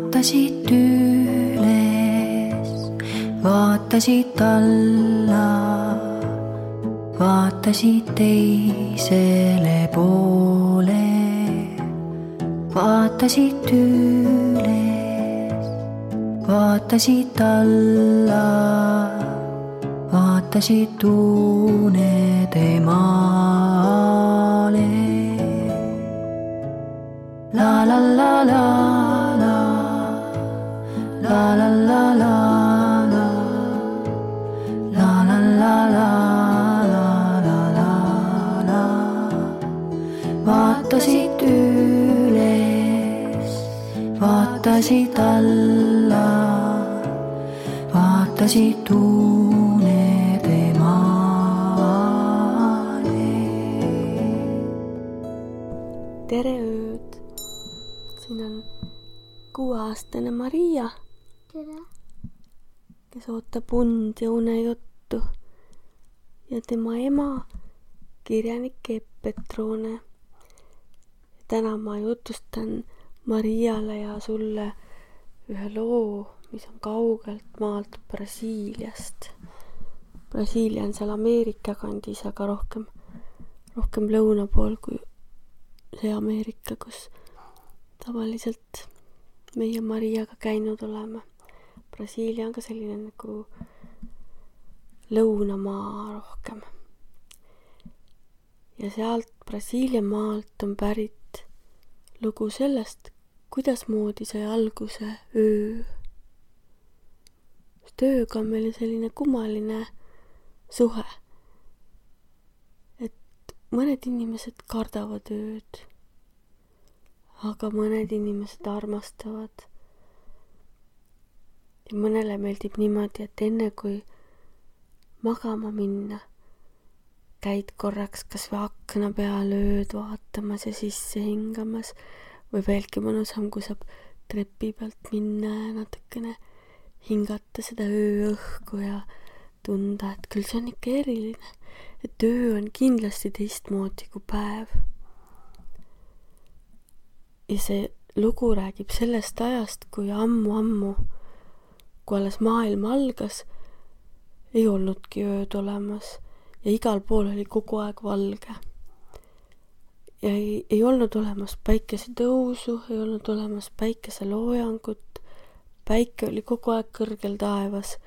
vaatasid üles, vaatasid alla, vaatasid teisele poole, vaatasid üles, vaatasid alla, vaatasid unede maale. La la la la la, la la la la la, la la la la la la la la. Vaatasid üles, vaatasid alla, vaatasid unede maale. Tere ööd! Siin on 6-aastane Maria, kes ootab und ja unejuttu, ja tema ema, kirjanik Epp Petrone. Täna ma jutustan Mariale ja sulle ühe loo, mis on kaugelt maalt Brasiiliast. Brasiilia on seal Ameerika kandis, aga rohkem lõuna pool kui see Ameerika, kus tavaliselt meie Mariaga käinud oleme. Brasiilia on ka selline nagu lõunamaa rohkem. Ja sealt Brasiilia maalt on pärit lugu sellest, kuidas moodi sai alguse öö. Sest ööga on meil selline kummaline suhe. Et mõned inimesed kardavad ööd, aga mõned inimesed armastavad. Ja mõnele meeldib niimoodi, et enne kui magama minna, käid korraks kas või akna peal ööd vaatamas ja sisse hingamas, või veelgi mõnusam, kui saab trepi pealt minna ja natukene hingata seda ööõhku ja tunda, et küll see on ikka eriline, et öö on kindlasti teistmoodi kui päev. Ja see lugu räägib sellest ajast, kui ammu, kui alles maailm algas, ei olnudki ööd olemas ja igal pool oli kogu aeg valge. Ja ei olnud olemas päikesetõusu, ei olnud olemas päikeseloojangut, päike oli kogu aeg kõrgel taevas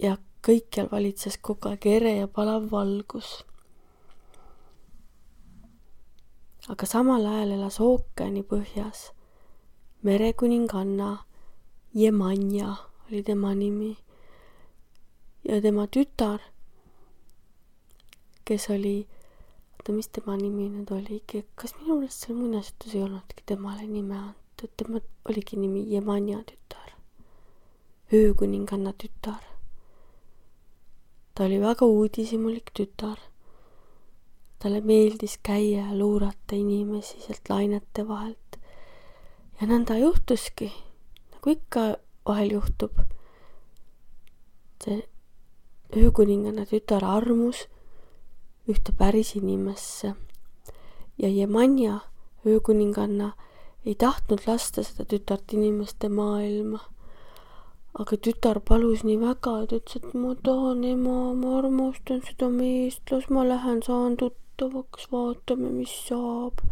ja kõikjal valitses kogu aeg ere ja palav valgus. Aga samal ajal elas ookeani põhjas merekuninganna Jemanja oli tema nimi ja tema tütar, kes oli, mis tema nimi nüüd oligi, kas minu meelest seal muinasjutus ei olnudki temale nime antud, tema oligi nimi Jemanja tütar, öökuninganna tütar. Ta oli väga uudishimulik tütar. Talle meeldis käia ja luurata inimesi sealt lainete vahelt. Ja nõnda juhtuski, nagu ikka vahel juhtub. See öökuninganna tütar armus ühte päris inimesse. Ja Jemanja, öökuninganna, ei tahtnud lasta seda tütart inimeste maailma. Aga tütar palus nii väga, et ütles, et ma tahan ema, ma armastan seda meest, las ma lähen, saan tuttavaks, vaatame, mis saab.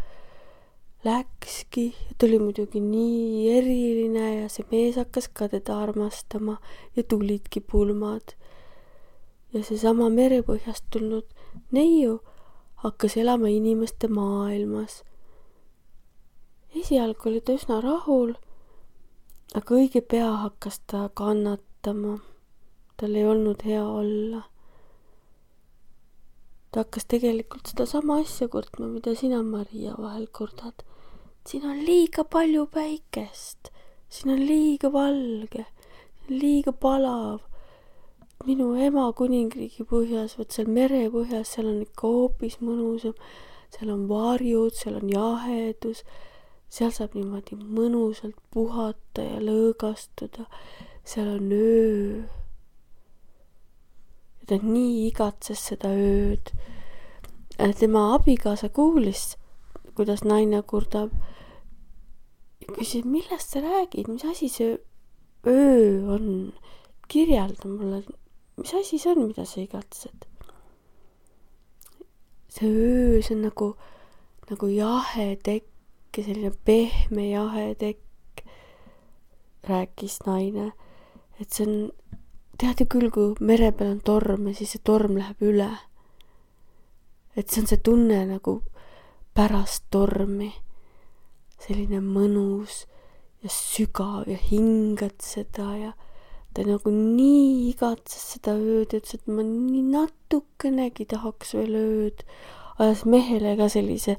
Läkski ja ta oli muidugi nii eriline ja see mees hakkas ka teda armastama ja tulidki pulmad. Ja seesama merepõhjast tulnud neiu hakkas elama inimeste maailmas. Esialgu oli ta üsna rahul, aga õige pea hakkas ta kannatama. Tal ei olnud hea olla. Ta hakkas tegelikult seda sama asja kurtma, mida sina, Maria, vahel kurdad. Siin on liiga palju päikest, siin on liiga valge, liiga palav. Minu ema kuningriigi põhjas, võt seal mere põhjas, seal on ikka hoopis mõnusam. Seal on varjud, seal on jahedus, seal saab niimoodi mõnusalt puhata ja lõõgastuda. Seal on öö. Ja ta nii igatses seda ööd. Tema abikaasa kuulis, kuidas naine kurdab küsin, millest sa räägid, mis asi see öö on? Kirjelda mulle, mis asi see on, mida sa igatsed? See öö, see on nagu jahe tekk ja selline pehme jahe tekk, rääkis naine. Et see on, tead ju küll, kui mere peal on torm ja siis see torm läheb üle. Et see on see tunne nagu pärast tormi. Selline mõnus ja sügav ja hingad seda ja ta nagu nii igatses seda ööd, ütles, et ma nii natukenegi tahaks veel ööd. Ajas mehele ka sellise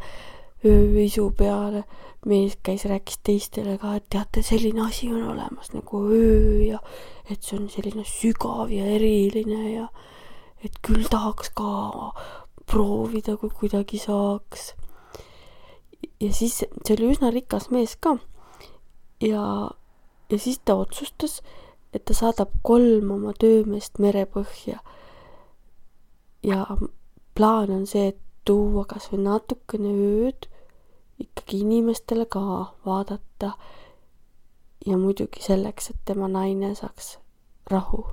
ööisu peale. Mees käis, rääkis teistele ka, et teate, selline asi on olemas nagu öö ja et see on selline sügav ja eriline ja et küll tahaks ka proovida, kui kuidagi saaks. Ja siis see oli üsna rikas mees ka. Ja siis ta otsustas, et ta saadab 3 oma töömeest merepõhja. Ja plaan on see, et tuua kas või natukene ööd ikkagi inimestele ka vaadata. Ja muidugi selleks, et tema naine saaks rahu.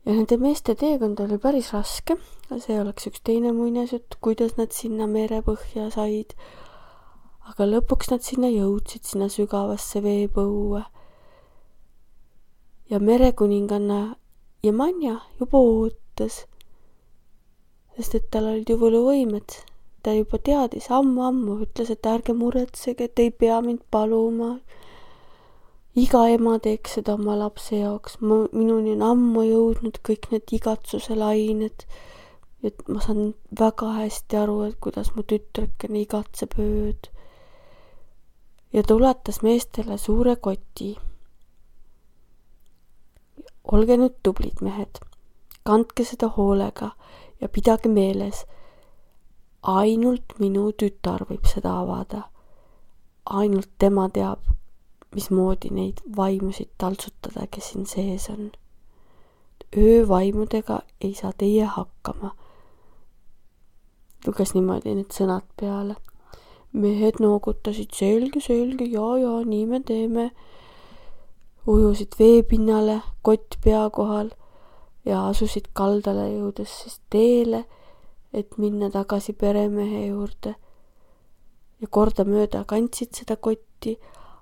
Ja nende meeste teekond oli päris raske. See oleks üks teine muinasjutt, kuidas nad sinna merepõhja said. Aga lõpuks nad sinna jõudsid, sinna sügavasse veepõue. Ja merekuninganna Jemanja juba ootas, sest et tal olid ju võluvõimed. Ta juba teadis ammu, ütles, et ärge muretsege, et ei pea mind paluma. Iga ema teeks seda oma lapse jaoks. Minuni on ammu jõudnud kõik need igatsuse lained. Et ma saan väga hästi aru, et kuidas mu tütrekene igatseb ööd. Ja ta ulatas meestele suure koti. Olge nüüd tublid mehed. Kandke seda hoolega ja pidage meeles. Ainult minu tütar võib seda avada. Ainult tema teab, mismoodi neid vaimusid taltsutada, kes siin sees on. Öövaimudega ei saa teie hakkama. Luges niimoodi need sõnad peale. Mehed noogutasid selge, ja, nii me teeme. Ujusid veepinnale, kott pea kohal ja asusid kaldale jõudes siis teele, et minna tagasi peremehe juurde. Ja kordamööda kandsid seda kotti,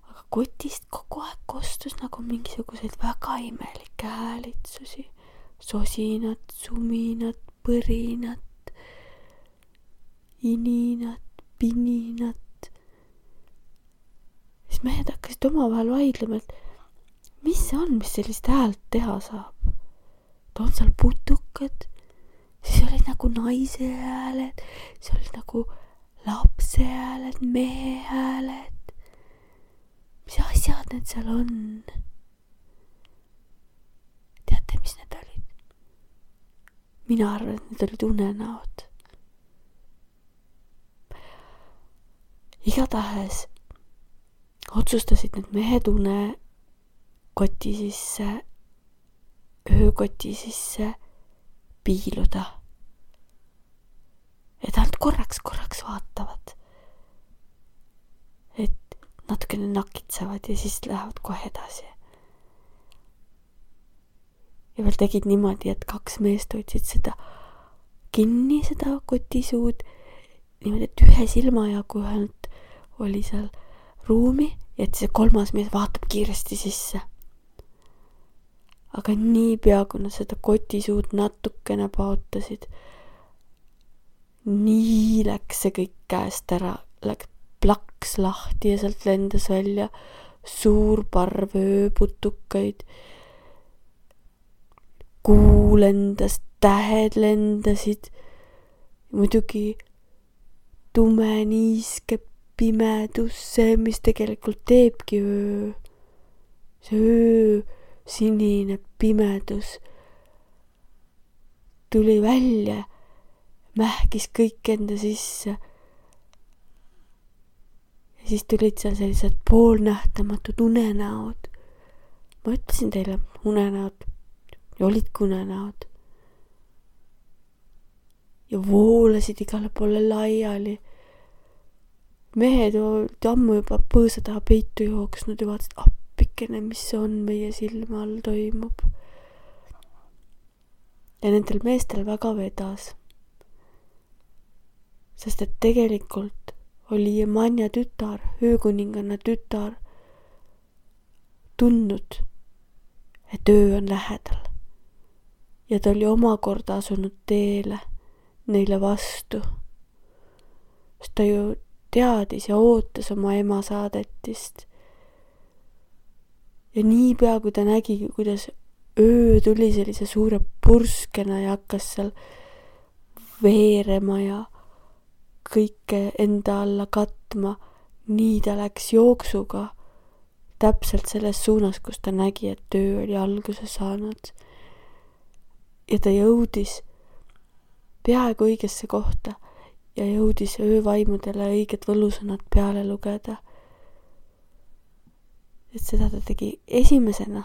aga kotist kogu aeg kostus nagu mingisuguseid väga imelikke häälitsusi. Sosinat, suminat, põrinat, ininat, pininat. Siis mehed hakkasid omavahel vaidlema, et mis see on, mis sellist häält teha saab? On seal putukad, siis olid nagu naise hääled, siis olid nagu lapse hääled, mehe hääled. Mis asjad need seal on? Teate, mis need olid? Mina arvan, et need olid unenäod. Igatahes otsustasid need mehed unekoti sisse, öökoti sisse piiluda. Et nad korraks vaatavad. Et natukene nakitsevad ja siis lähevad kohe edasi. Ja veel tegid niimoodi, et 2 meest hoidsid seda kinni, seda kotisuud, niimoodi, et ühe silma jagu ühelt oli seal ruumi ja et see 3. mees vaatab kiiresti sisse. Aga nii pea, kui nad seda kotisuud natukene paotasid, nii läks see kõik käest ära, läks plaks lahti ja sealt lendas välja suur parv ööputukaid. Kuu lendas, tähed lendasid, muidugi tume niiske pimedus, see, mis tegelikult teebki öö. See öö, sinine pimedus tuli välja, mähkis kõik enda sisse. Ja siis tulid seal sellised poolnähtamatud unenäod. Ma ütlesin teile, unenäod ja olidki unenäod. Ja voolasid igale poole laiali. mehed olid ammu juba põõsa taha peitu jooksnud ja vaatasid, appikene, mis see on meie silme all toimub. Ja nendel meestel väga vedas. Sest et tegelikult oli Jemanja tütar, öökuninganna tütar, tundnud, et öö on lähedal. Ja ta oli omakorda asunud teele neile vastu. Sest ta ju teadis ja ootas oma ema saadetist. Ja niipea, kui ta nägi, kuidas öö tuli sellise suure purskena ja hakkas seal veerema ja kõike enda alla katma, nii ta läks jooksuga täpselt selles suunas, kus ta nägi, et öö oli alguse saanud. Ja ta jõudis peaaegu õigesse kohta ja jõudis öövaimudele õiged võlusõnad peale lugeda. Et seda ta tegi esimesena.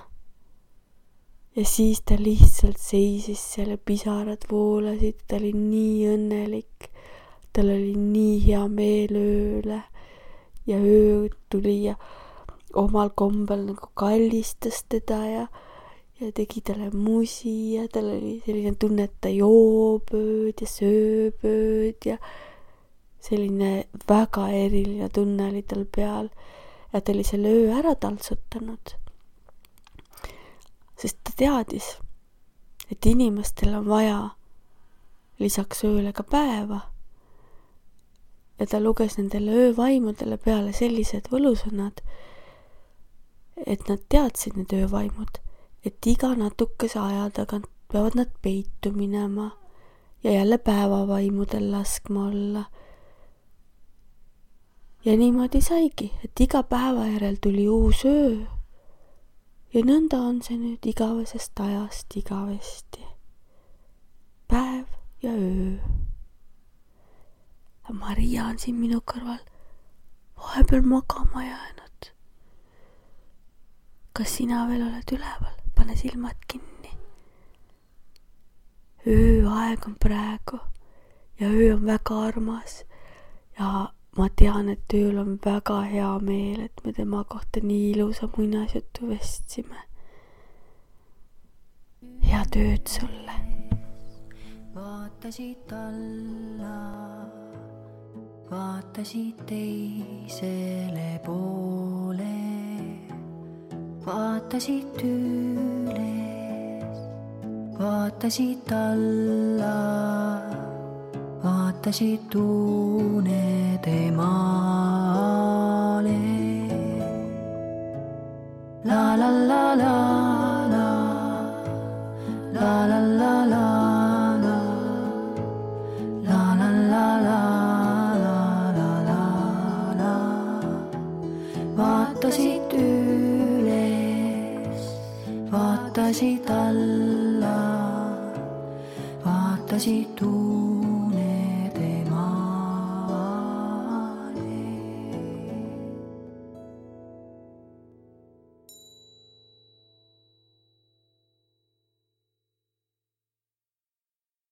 Ja siis ta lihtsalt seisis seal ja pisarad voolasid, ta oli nii õnnelik. Tal oli nii hea meel ööle ja öö tuli ja omal kombel nagu kallistas teda ja tegi talle musi ja tal oli selline tunne, et ta joob ööd ja sööb ööd ja selline väga eriline tunne oli tal peal ja ta oli selle öö ära taltsutanud. Sest ta teadis, et inimestel on vaja lisaks ööle ka päeva. Ja ta luges nendele öövaimudele peale sellised võlusõnad, et nad teadsid need öövaimud, et iga natukese aja tagant peavad nad peitu minema ja jälle päevavaimudel laskma olla. Ja niimoodi saigi, et iga päeva järel tuli uus öö. Ja nõnda on see nüüd igavesest ajast igavesti. Päev ja öö. Maria on siin minu kõrval vahepeal magama jäänud. Kas sina veel oled üleval? Pane silmad kinni. Ööaeg on praegu ja öö on väga armas ja ma tean, et ööl on väga hea meel, et me tema kohta nii ilusa muinasjutu vestsime. Head ööd sulle. Vaatasid alla, vaatasid teisele poole, vaatasid üles, vaatasid alla, vaatasid unede maale. La la la la la, la la la la la, la la la la la la la. Vaatasid üles, vaatasid alla, vaatasid